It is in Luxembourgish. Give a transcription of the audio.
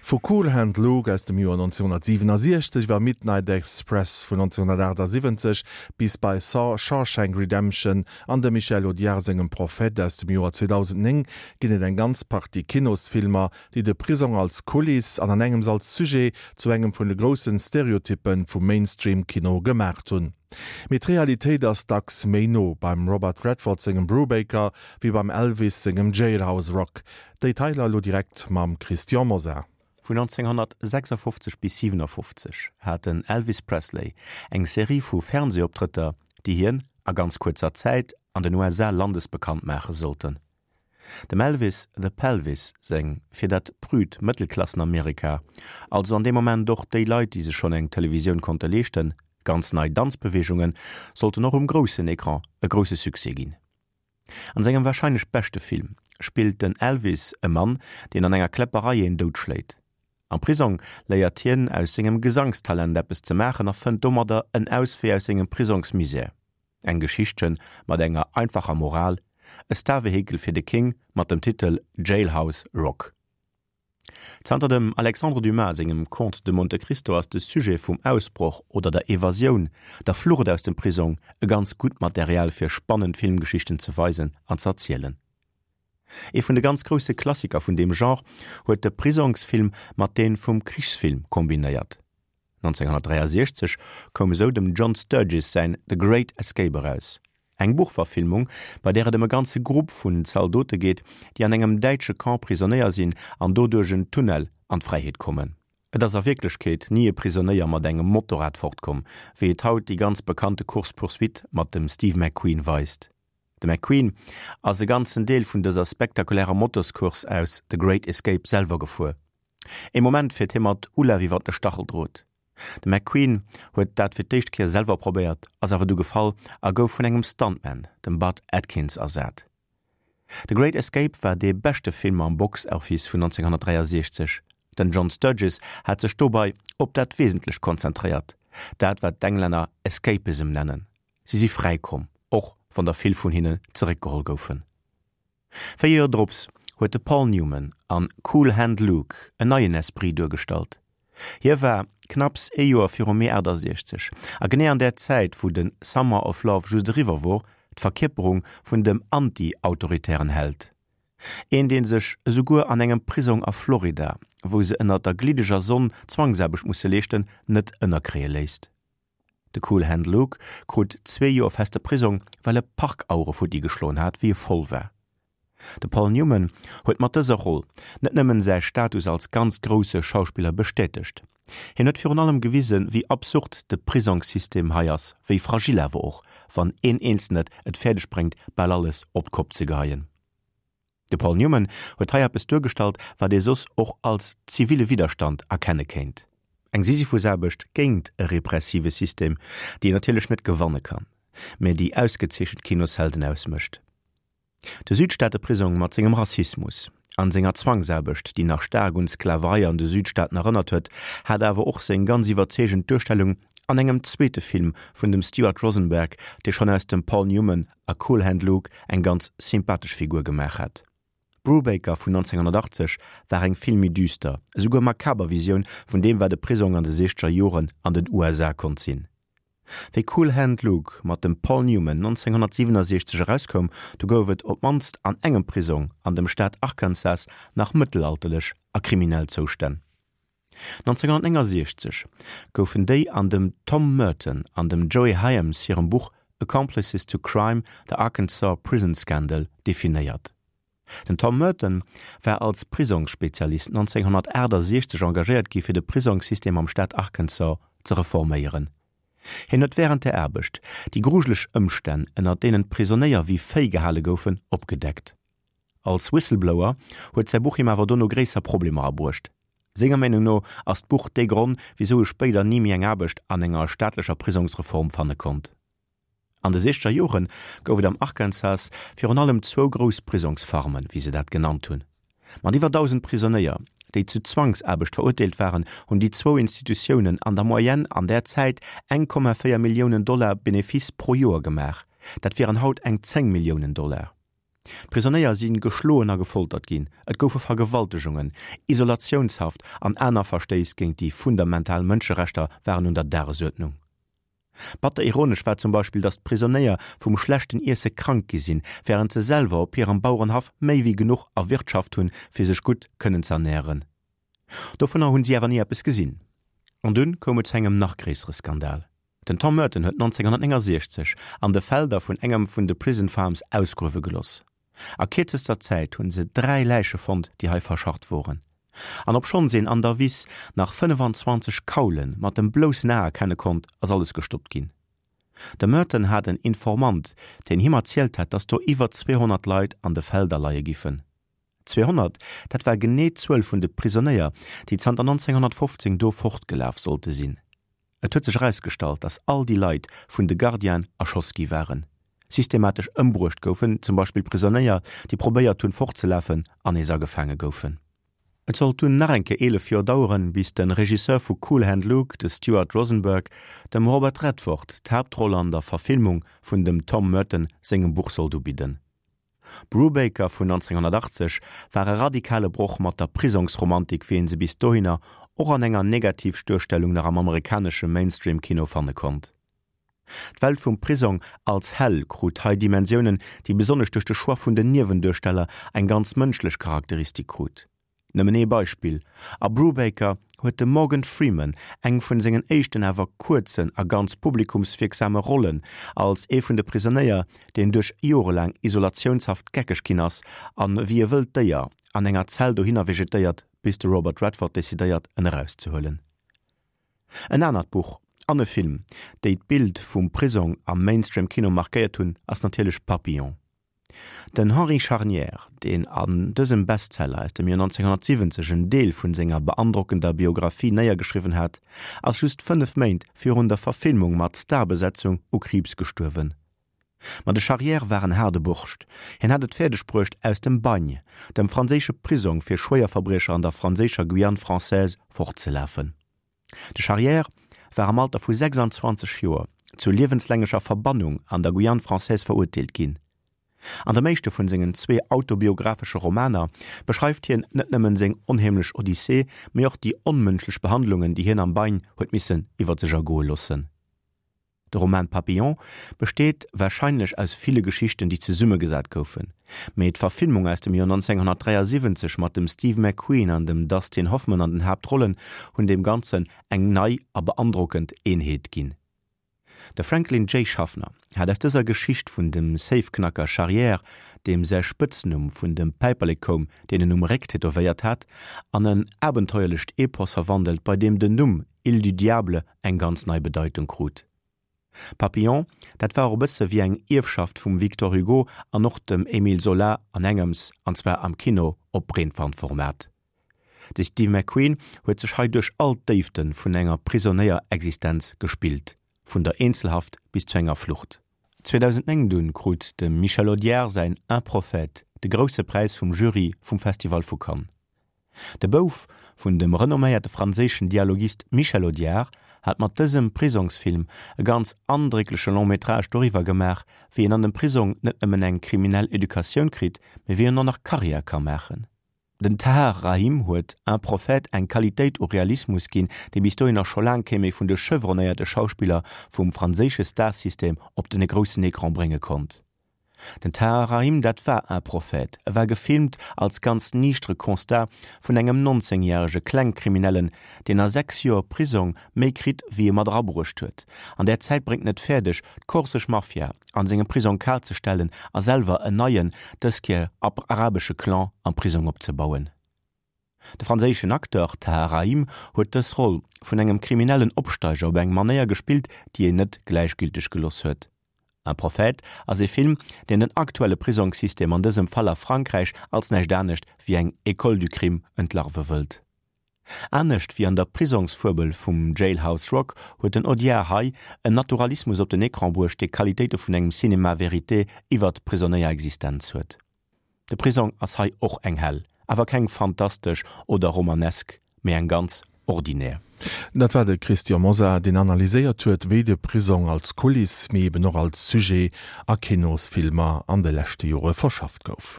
Vu Cool Hand Luke aus dem Joer 1967 iwwer Midnight Express vun 1978 bis bei Saw, Shawshank Redemption an dem Michel Audiard sengem Prophète aus dem Joer 2009 ginn et eng ganz Partie Kinosfilmer, déi de Prisong als Kuliss an an engems als Sujet zu engem vun de groussen Stereotyppen vum Mainstream-Kino gemaacht hunn. Mee d'Realitéit ass dacks méi no beim Robert Redford sengem Brubaker wéi beim Elvis sengem Jailhouse Rock. Détailer elo direkt mam Christian Mosar. Vun 1956 bis 57 hat den Elvis Presley eng Serie vu Fernseeoptrëtter, déi hien a ganz kuerzer Zäit an den USA landesbekannt maache sollten. Dem Elvis the Pelvis seng fir dat prüd Mëttelklassen-Amerika, also an deem Moment och déi Leit, déi sech schonn eng Televisioun konnte leeschten, ganz nei Danzbeweegungen sollten och um groussen Ecran e grousse Succès ginn. An sengem warscheinlech beschte Film spillt den Elvis e Mann, deen an enger Kläpperei een doutschléit. Am Prisong léiert hien aus sengem Gesangstalent eppes ze maachen a fënnt domadder en Auswee aus sengem Prisongsmisär. Eng Geschichtchen mat enger einfacher Moral, e Starvehikel fir de King mat dem Titel Jailhouse Rock. Zanter dem Alexandre Dumas sengem Comte de Monte Cristo ass de Sujet vum Ausbroch oder der Evasioun, der Flucht aus dem Prisong e ganz gutt Material fir spannend Filmgeschichten ze weisen an z'erzielen. Ee vun de ganz grousse Klassiker vun deem Genre huet de Prisongsfilm mat deen vum Krichsfilm kombinéiert. 1963 koum esou dem John Sturges säin The Great Escape eraus, eng Buchverfilmung, bei där et ëm e ganze Grupp vun Zaldote geet, déi an engem däitsche Camp Prisonéier sinn an do duerch en Tunnel an d'Fräiheet kommen. Et ass a Wierklechkeet ni e Prisonéier mat engem Motorrad fortkomm, wéi et haut déi ganz bekannte Course-poursuite mat dem Steve McQueen weist. De McQueen ass e ganzen Deel vun dëser spektakulärer Motoscourse aus The Great Escape selwer gefuer. Ee Moment fiert hie mat Ulaf iwwer de Stacheldrot. De McQueen huet dat fir d'éischt Kéier selwer probéiert, ass awer du gefall a gouf vun engem Stuntman, dem Bud Atkins, ersat. The Great Escape war dee beschte Film am Box Office vun 1963. Den John Sturges hat sech dobei op dat Wesentlecht konzentréiert, dat wat d'Englänner Escapism nennen. Si si fräi komm, och wann der vill vun hinnen zeréckgeholl goufen. 4 Joer drops huet de Paul Newman an Cool Hand Luke en neien Esprit duergestallt. Hie war knapps ee Joer virum Mee 68 a genee an där Zäit wou de Summer of Love just eriwwer wor, d'Verkierperung vun dem anti-autoritären Held. Een dee sech esouguer an engem Prisong a Florida, wou se ënnert der gliddeger Sonn Zwangsaarbecht musse leeschten, net ënnerkréie léisst. De Cool Hand Luke krut zwee Joer feste Prisong, well e Parkauere futti geschloen hat, wéi e voll war. De Paul Newman huet mat dëser Roll net nëmmen säi Status als ganz grousse Schauspiller bestätegt, hien huet virun allem gewisen, wéi absurd de Prisongssystem hei ass, wéi fragil awer och, wann een Eenzelnet et fäerdeg bréngt, bal alles op d'Kopp ze geheien. De Paul Newman huet hei eppes duergestallt, wat ee soss och als ziville Widderstand erkenne kéint, eng Sisyphusaarbecht géint e repressive System, déi een natierlech net gewanne kann, mä déi ausgezeechent Kinoshelden ausmécht. De Südstaateprisong mat sengem Rassismus an senger Zwangsaarbecht, déi nach staark un d'Sklaverei an de Südstaaten erënnert huet, hat awer och seng ganz iwwerzeegend Duerstellung an engem zweete Film vun dem Stuart Rosenberg, dee schonn aus dem Paul Newman a Cool Hand Luke eng ganz sympathesch Figur gemaach hat. Brubaker vun 1980 war eng vill méi düster, esouguer makaber Visioun vun deem wat e Prisong an de siechzeger Joren an den USA konnt sinn. Wéi Cool Hand Luke mat dem Paul Newman 1967 erauskoum, du gouf et op d'mannst an engem Prisong an dem Staat Arkansas nach mëttelalterlech a kriminell Zoustänn. 1969 goufen déi an dem Tom Merton an dem Joey Hyams hirem Buch Accomplices to Crime, The Arkansas Prison Scandal definéiert. Den Tom Merton war als Prisongsspezialist 1968 engagéiert gi fir de Prisongssystem am Staat Arkansas ze reforméieren. Hien huet wärend der Aarbecht déi grujeleg Ëmstänn, ënner deenen d'Prisonéier wéi Véi gehale goufen, opgedeckt. Als Whistleblower huet säi Buch him awer dono gréisser Problemer abruecht. Senger Meenung no ass d'Buch dee Gronn, wisou e spéider ni méi eng Aarbecht an enger staatlecher Prisongsreform fanne konnt. An de siechzeger Jore gouf et am Arkansas virun allem zwou grouss Prisongsfarmen, wéi se dat genannt hunn. Mat iwwer 1.000 Prisonéier, déi zu Zwangsaarbecht verurteelt waren, hunn déi zwou Institutiounen an der Moyenne an där Zäit 1,4 Milliounen Dollar Benefice pro Joer gemaach. Dat wieren haut eng 10 Milliounen Dollar. D'Prisonéier si geschloen a gefoltert ginn, et goufe Vergewaltegungen, Isolatiounshaft an aner Verstéiss géint déi fundamental Mënscherechter waren un der Dagesuerdnung. Batter ironesch war zum Beispill, datt d'Prisonéier vum schlechten Iesse krank gi sinn, wärend se selwer op hirem Bauerenhaff méi wéi genuch erwirtschaft hunn, fir sech gutt kënnen z'ernären. Dovunner hunn si awer ni eppes gesinn. An dunn koum et zu engem nach gréissere Skandal. Den Tom Merton huet 1969 an de Felder vun engem vun de Prison Farms ausgruewe geloss. A kierzester Zäit hunn se 3 Läiche fonnt, déi hei verscharrt woren. An obschonns een an der Wiss nach 25 Kaule mat dem bloussen A erkenne konnt, ass alles gestoppt ginn. De Merton hat en Informant, deen him erzielt hat, dass do iwwer 200 Leit an de Felder leie giffen. 200, dat war genee d'Zuel vun de Prisonéier, déi zanter 1915 do fortgelaf sollte sinn. Et huet sech erausgestallt, datt all déi Leit vun de Gardienen erschoss gi waren, systematesch ëmbruecht goufen, zum Beispill Prisonéier, déi probéiert hunn, fortzelafen an nees agefaange goufen. Et sollt dunn nach eng Kéier 11 Joer daueren, bis de Regisseur vu Cool Hand Luke, de Stuart Rosenberg, dem Robert Redford d'Haaptroll an der Verfilmung vun dem Tom Merton sengem Buch sollt ubidden. Brubaker vun 1980 war e radikale Broch mat der Prisongsromantik wéi een se bis dohinner och an enger Negativduerstellung nach am amerikanesche Mainstream-Kino fanne konnt. D'Welt vum Prisong als Hell krut hei Dimensiounen, déi besonnesch duerch de Choix vun den Niewenduersteller eng ganz mënschlech Charakteristik krut. Nëmmen ee Beispill, A Brubaker huet de Morgan Freeman eng vun sengen éischten awer kuerzen a ganz publikumswierksame Rollen als ee vun de Prisonéier, deen duerch jorelaang Isolatiounshaft geckeg ginn ass an wéi e wëllt Déier an enger Zell dohinner vegetéiert, bis de Robert Redford decidéiert en erauszehuelen. En anert Buch an e Film, déi d'Bild vum Prisong am Mainstream-Kino markéiert hunn, ass natierlech Papillon. Den Henri Charnière, deen an dësem Bestseller aus dem Joer 1970 en Deel vun senger beandrockender Biographie néiergeschriwwen hat, ass just 5 Méint virun der Verfilmung mat Starbesetzung u Kriibs gestuerwen. Ma de Charrière war en haarde Borscht. Hien hat et fäerdeg bruecht, aus dem Bagne, dem franséische Prisong fir Schwéierverbriecher an der franséischer Guyane française, fortzelafen. De Charrière war am Alter vu 26 Joer zu liewenslängecher Verbannung an der Guyane française verurteelt ginn. An dem éischte vun sengen zwee autobiographesche Romaner beschreift hien net nëmmen seng onheemlech Odyssee, mee och déi onmënschlech Behandlungen, déi hien am Bagne huet missen iwwer sech ergoe loossen. De Roman Papillon besteet warscheinlech aus ville Geschichten, déi zesummegesat goufen, mee d'Verfilmung aus dem Joer 1973 mat dem Steve McQueen an dem Dustin Hoffman an den Haaptrollen hunn deem Ganzen eng nei a beandrockend Eenheet ginn. De Franklin J. Schaffner hat aus dëser Geschicht vun dem Safeknacker Charrière, deem säi Spëtznumm vun dem Päiperlek koum, deen en um Réck tätowéiert hat, an en abenteuerlecht Epos verwandelt, bei deem den Numm Île du Diable eng ganz nei Bedeitung krut. Papillon, dat war och e bësse wéi eng Ierfschaft vum Victor Hugo an och dem Émile Zola an engems, an zwar am Kino op Breetwandformat. De Steve McQueen huet sech hei duerch all d'Déifte vun enger Prisonéierexistenz gespillt, vun der Eenzelhaft bis zu enger Flucht. 2009 dunn krut dem Michel Audiard säin Un prophète de grousse Präis vum Jury vum Festival vu Cannes. De Bouf vun dem renomméierte franséischen Dialogist Michel Audiard hat mat dësem Prisongsfilm e ganz andréckleche Long-métrage doriwwer gemaach, wéi een an dem Prisong net nëmmen eng kriminell Educatioun kritt, mee wéi en och nach Karriär ka maachen. Den Tahar Rahim huet Un prophète eng Qualitéit u Realismus ginn, déi bis dohinner scho laang kee méi vun de chevronnéierte Schauspiller vum franséische Starsystem op den groussen Ecran brénge konnt. Den Tahar Rahim, dat war Un prophète. E war gefilmt als ganz niichtere Constat vun engem 19 järege Klengkriminellen, deen a 6 Joer Prisong méi kritt wéi e mat erabruecht huet. An där Zäit bréngt en et fäerdeg, d'korsesch Mafia an sengem Prisong kal ze stellen a selwer en neien, dës Kéier arabesche Clan am Prisong opzebauen. De franséischen Acteur Tahar Rahim huet dës Roll vun engem kriminellen Opsteiger op eng Manéier gespillt, déi een net gläichgülteg geloss huet. Un prophète ass ee Film, deen den aktuelle Prisongssystem, an dësem Fall a Frankräich, als näischt anescht wéi eng École du crime entlarve wëllt. Anescht wéi an der Prisongsfuebel vum Jailhouse Rock huet den Audiard hei en Naturalismus op den Ecran bruecht, dee Qualitéite vun engem Cinéma vérité iwwert d'Prisonéierexistenz huet. De Prisong ass hei och eng Hell, awer keng fantastesch oder romanesk, mee eng ganz ordinär. Dat war de Christian Mosar, deen analyséiert huet, wéi de Prisong als Kuliss, mee eben och als Sujet a Kinosfilmer an de leschte Jore verschafft gouf.